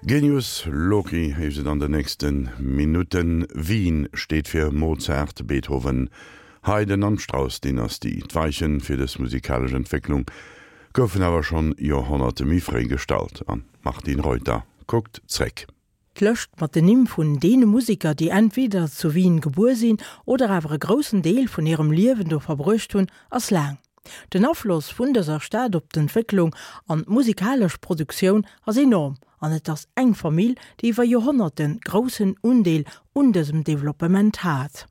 Genius Loci heescht et an den nächste Minutten. Wien steet fir Mozart, Beethoven, Haydn an d'Strauss-Dynastie. D'Weiche fir dës musikalesch Entwécklung goufen awer schonn Joerhonnerte méi fréi gestallt. An d'Martine Reuter kuckt zréck. D'Lëscht mat den Nimm vun deene Museker, déi entweder zu Wien gebuer sinn oder awer e groussen Deel vun hirem Liewen do verbruecht hunn, ass laang. Den Afloss vun dëser Stad op d'Entwécklung an d'musikalesch Produktioun ass enorm an et ass eng Famill, déi iwwer Joerhonnerte groussen Undeel un dësem Developpement hat.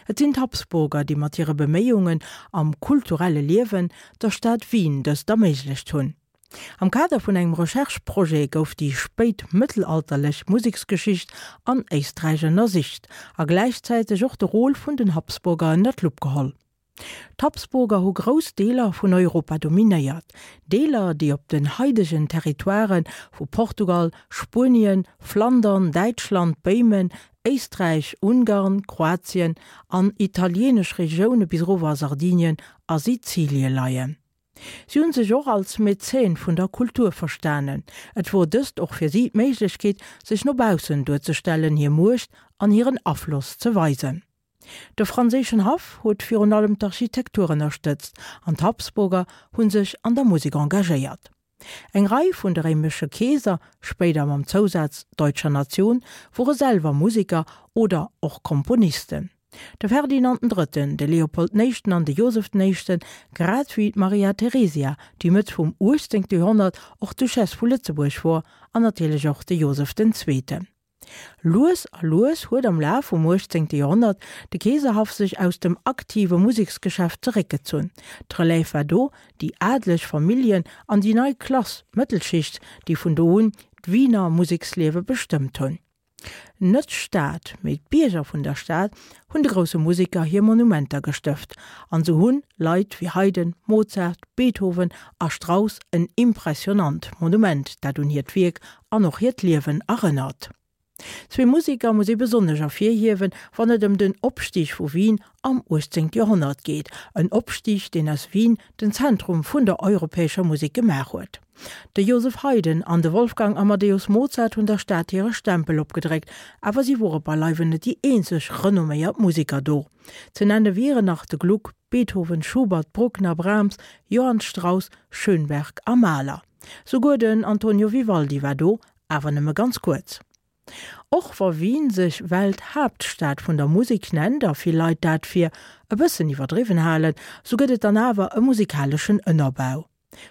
Et sinn d'Habsburger, déi mat hire Beméiungen am kulturelle Liewen der Stad Wien dëst erméiglecht hunn. Am Kader vun engem Recherche-Projet gouf déi spéitmëttelalterlech Museksgeschicht an Éisträich ënnersicht a gläichzäiteg och de Rôle vun den Habsburger ënner d'Lupp geholl. D'Habsburger hu grouss Deeler vun Europa dominéiert, Deeler, déi op den haidegen Territoiren vu Portugal, Spuenien, Flandern, Däitschland, Béimen, Éisträich, Ungarn, Kroatien an italieenesch Regioune bis erower a Sardinien a Sizilie leien. Si hunn sech och als Mäzen vun der Kultur verstanen. Et wor dëst och fir si d'Méiglechkeet, sech no baussen duerzestellen, hir Muecht an hiren Afloss ze weisen. De franséischen Haff huet virun allem d'Architektur ënnerstëtzt an d'Habsburger hu sech an der Musek engagéiert. Eng Rei vun de réimesche Keeser, spéider mam Zousaz deutscher Nation, wore selwer Museker oder och Komponisten. De Ferdinand den Drëtten, de Leopold den Éischten an de Joseph den Éischten, grad wéi d'Maria Theresia, déi Mëtt vum 18. Joerhonnert och Duchesse vu Lëtzebuerg wor, an natierlech och de Joseph den Zweeten. Lues a lues huet am Laf vum 18. Joerhonnert de Keeserhaff sech aus dem aktive Museksgeschäft zeréckgezunn. D'Relève war do, déi adeleg Familljen an déi nei Klass, d'Mëttelschicht, déi vun do un d'Wiener Museksliewe bestëmmt hunn. Net d'Stad, mee d'Bierger vun der Stad hunn de grousse Museker hir Monumenter gestëft an sou hunn Leit wéi Haydn, Mozart, Beethoven a Strauss en impressionant Monument, dat un hiert Wierk an och hiert Liewen erënnert. Zwee Museker muss ee besonnesch ervirhiewen, wann et ëm den Opstig vu Wien am 18. Joerhonnert geet, en Opstig, deen aus Wien den Zentrum vun der europäescher Musek gemaach huet. De Joseph Haydn an de Wolfgang Amadeus Mozart hunn der Stad hire Stempel opgedréckt, awer si wore beileiwen net déi eenzeg renomméiert Museker do. Ze nenne wieren nach de Gluck, Beethoven, Schubert, Bruckner, Brahms, Johann Strauss, Schönberg a Mahler. Souguer den Antonio Vivaldi war do, awer nëmme ganz kuerz. Och wa Wien sech Welthaaptstad vun der Musek nennt a vill Leit dat fir e bëssen iwwerdriwwen halen, sou gëtt et dann awer e musikaleschen Ënnerbau.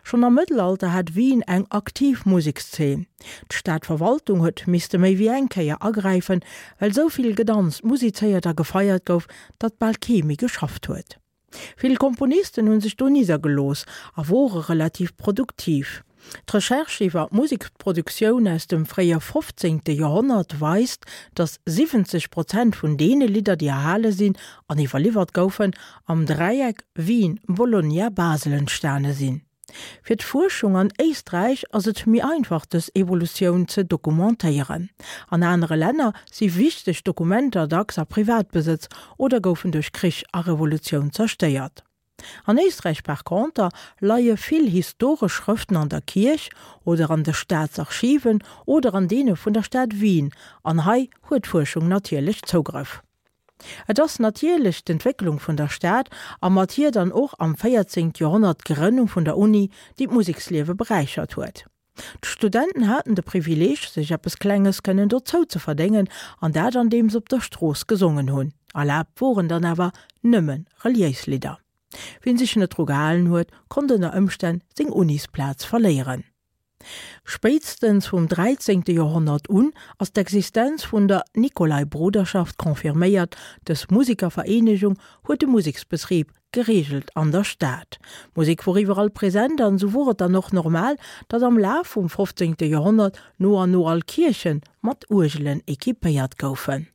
Schonn am Mëttelalter hat Wien eng aktiv Musekszeen. D'Stadverwaltung huet misste méi wéi eng Kéier agräifen, well sou vill gedanzt, musizéiert a gefeiert gouf, datt bal kee méi geschafft huet. Vill Komponisten hu sech do niddergelooss a wore relativ produktiv. D'Recherche iwwer d'Museksproduktioun aus dem fréie 15. Joerhonnert weist, datt 70 Prozent vun deene Lidder, déi erhale sinn an iwwerliwwert goufen, am Dräieck Wien-Bologna-Basel entstane sinn. Fir d'Fuerschung an Éisträich ass et méi einfach dës Evolutioun ze dokumentéieren. An anere Länner si wichteg Dokumenter dacks a Privatbesëtz oder goufen duerch Krich a Revolutioun zerstéiert. An Éisträich par conter leie vill historesch Schrëften an der Kierch oder an de Staatsarchiven oder an deene vun der Stad Wien, an hei huet d'Fuerschung natierlech Zougrëff. Et ass natierlech d'Entwécklung vun der Stad a mat hir dann och am 14. Joerhonnert d'Grënnung vun der Uni, déi d'Museksliewe beräichert huet. D'Studenten haten de Privileeg, sech eppes Klenges kënnen dozou ze verdéngen, an dat andeem se op der Strooss gesongen hunn. Erlaabt woren dann awer nëmme reliéis Lidder. Wien sech net dru gehalen huet, konnt ënner Ëmstänn seng Unisplaz verléieren. Spéitstens vum 13. Joerhonnert un ass d'Existenz vun der Nikolai-Bruderschaft confirméiert. Dës Musikervereenegung huet de Museksbetrib gereegelt an der Stad. D'Musek wor iwwerall present an esou wor et dann och normal, datt am Laf vum 15. Joerhonnert no an no all Kierche mat Uergelen equipéiert goufen.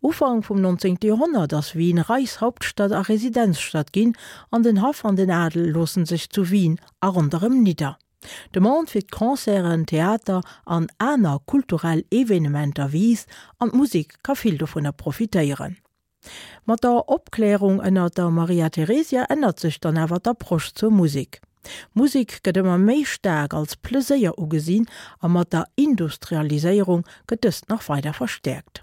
Ufank vum 19. Joerhonnert ass Wien Reichshauptstadt a Residenzstadt ginn an den Haff an den Adel loossen sech zu Wien a ronderëm nidder. D'Demande fir d'Concerten, Theater an aner kulturell Evenementer wiisst an d'Musek ka vill dovunner profitéieren. Mat der Opklärung ënner der Maria Theresia ännert sech dann awer d'Approche zur Musek. Musek gëtt ëmmer méi staark als Pleséier ugesinn a mat der Industrialiséierung gëtt dëst nach weider verstäerkt.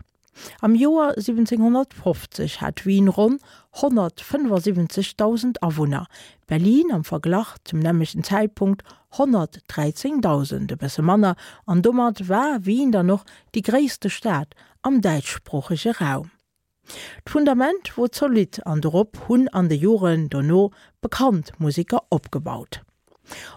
Am Joer 1750 hat Wien ronn 175.000 Awunner, Berlin am Verglach zum nämmlechten Zäitpunkt 113.000, e bësse manner, an domat war Wien dann och déi gréisste Stad am däitschsproochege Raum. D'Fundament wor zolidd an dorop hunn an de Joren dono bekannt Museker opgebaut.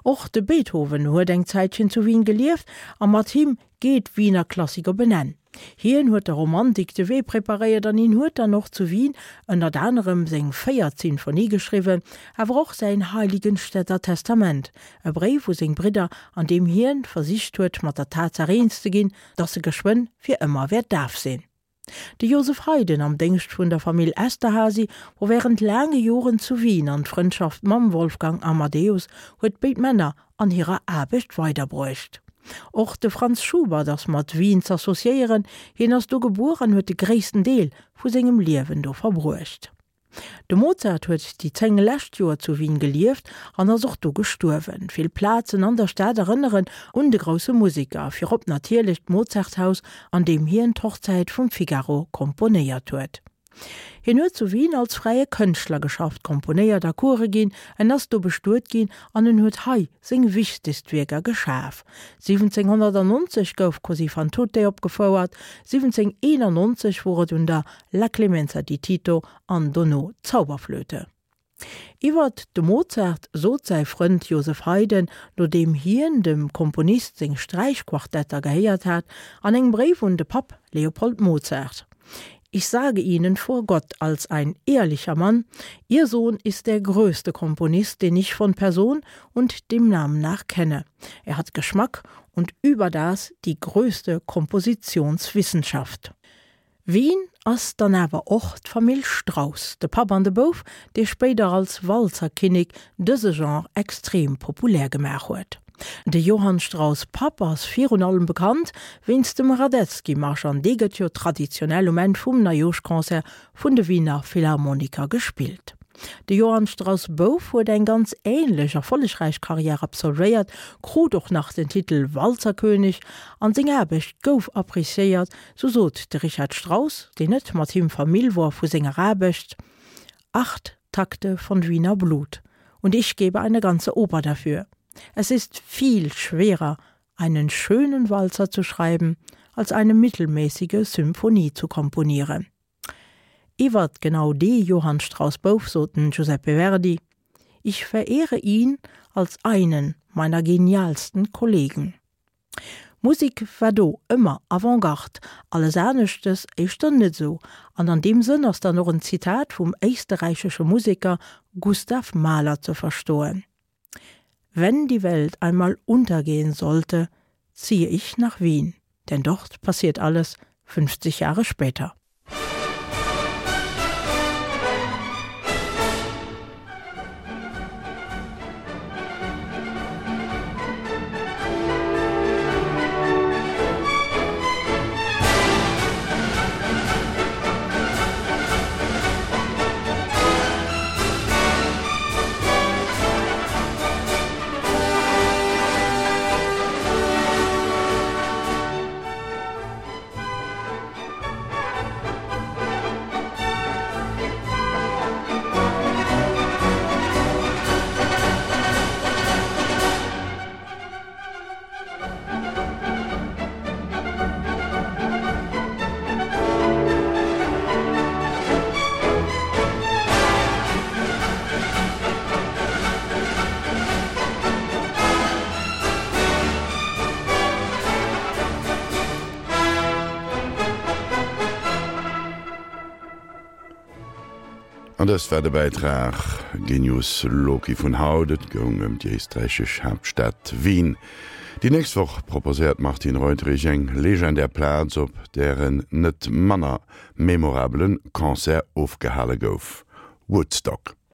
Och de Beethoven huet eng Zäitchen zu Wien gelieft a mat him geet d'Wiener Klassik op en Enn. Hien huet der Romantik de Wee preparéiert an hien huet dann och zu Wien ënnert anerem seng véiert Sinfonie geschriwwen, awer och säin Heiligenstädter Testament, e Bréif u seng Bridder, an deem hien versicht huet mat der Tatsaach eens ze ginn, datt e geschwënn fir ëmmer wäert daf sinn. De Joseph Haydn, am Déngscht vun der Famill Esterházy, wor wärend laange Joren zu Wien an d'Frëndschaft mam Wolfgang Amadeus huet béid Männer an hirer Aarbecht weiderbruecht. Och de Franz Schubert ass mat Wien z'associéieren, hien ass do gebuer an huet de gréissten Deel vu sengem Liewen do verbruecht. De Mozart huet déi 10 lescht Joer zu Wien gelieft an ass och do gestuerwen. Vill Plazen an der Stad erënneren un de grousse Museker, virop natierlech d'Mozarthaus, an deem hien d'Hochzäit vum Figaro komponéiert huet. Hien huet zu Wien als fräie Kënschtler geschafft, komponéiert a Coure ginn, en ass do bestuet ginn an en huet hei seng wichtegst Wierker geschaf. 1790 gouf Così fan tutte opgefouert, 1791 wor et un der La Clemenza di Tito an dono d'Zauberflöte. Iwwert de Mozart sot säi Frënd Joseph Haydn, nodeem hien dem Komponist seng Sträichquartetter gehéiert hat, an engem Bréif un de Papp Leopold Mozart, Ich sage Ihnen vor Gott als ein ehrlicher Mann, Ihr Sohn ist der größte Komponist, den ich von Person und dem Namen nach kenne. Er hat Geschmack und überdas die größte Kompositionswissenschaft. Wien ass dann awer och d'Famill Strauss, de Papp an de Bouf, dee spéider als Walzerkinnek dëse Genre extrem populär gemaach huet. De Johann Strauss Papp ass virun allem bekannt wéinst dem Radetzky-Marsch an dee gëtt jo traditionell um Enn vum Neijooschconcert vun de Wiener Philharmoniker gespillt. De Johann Strauss Bouf huet eng ganz änlech erfollegräich Karriär absolvéiert, krut och nach den Titel Walzerkönig an seng Aarbecht gouf appreciéiert, Sou sot de Richard Strauss, deen net mat him Famill wor, vu senger Aarbecht, Acht Takte von Wiener Blut und ich gebe eine ganze Oper dafür. Es ist viel schwerer, einen schönen Walzer zu schreiben, als eine mittelmäßige Symphonie zu komponieren. Iwwert genau dee Johann Strauss Bouf sot den Giuseppe Verdi, Ich verehre ihn als einen meiner genialsten Kollegen. Musek war do ëmmer Avant-Garde, alles aneschtes éischter net esou. An an deem Sënn ass dann och en Zitat vum éisterräichesche Museker Gustav Mahler ze verstoen, Wenn die Welt einmal untergehen sollte, ziehe ich nach Wien, denn dort passiert alles 50 Jahre später. An dëst war de Bäitrag Genius Loci vun haut. Et goung ëm déi éisträichesch Haaptstad Wien. Déi nächst Woch proposéiert d'Martine Reuterich eng legendär Plaz, op där en net manner memorabele Concert ofgehale gouf, Woodstock.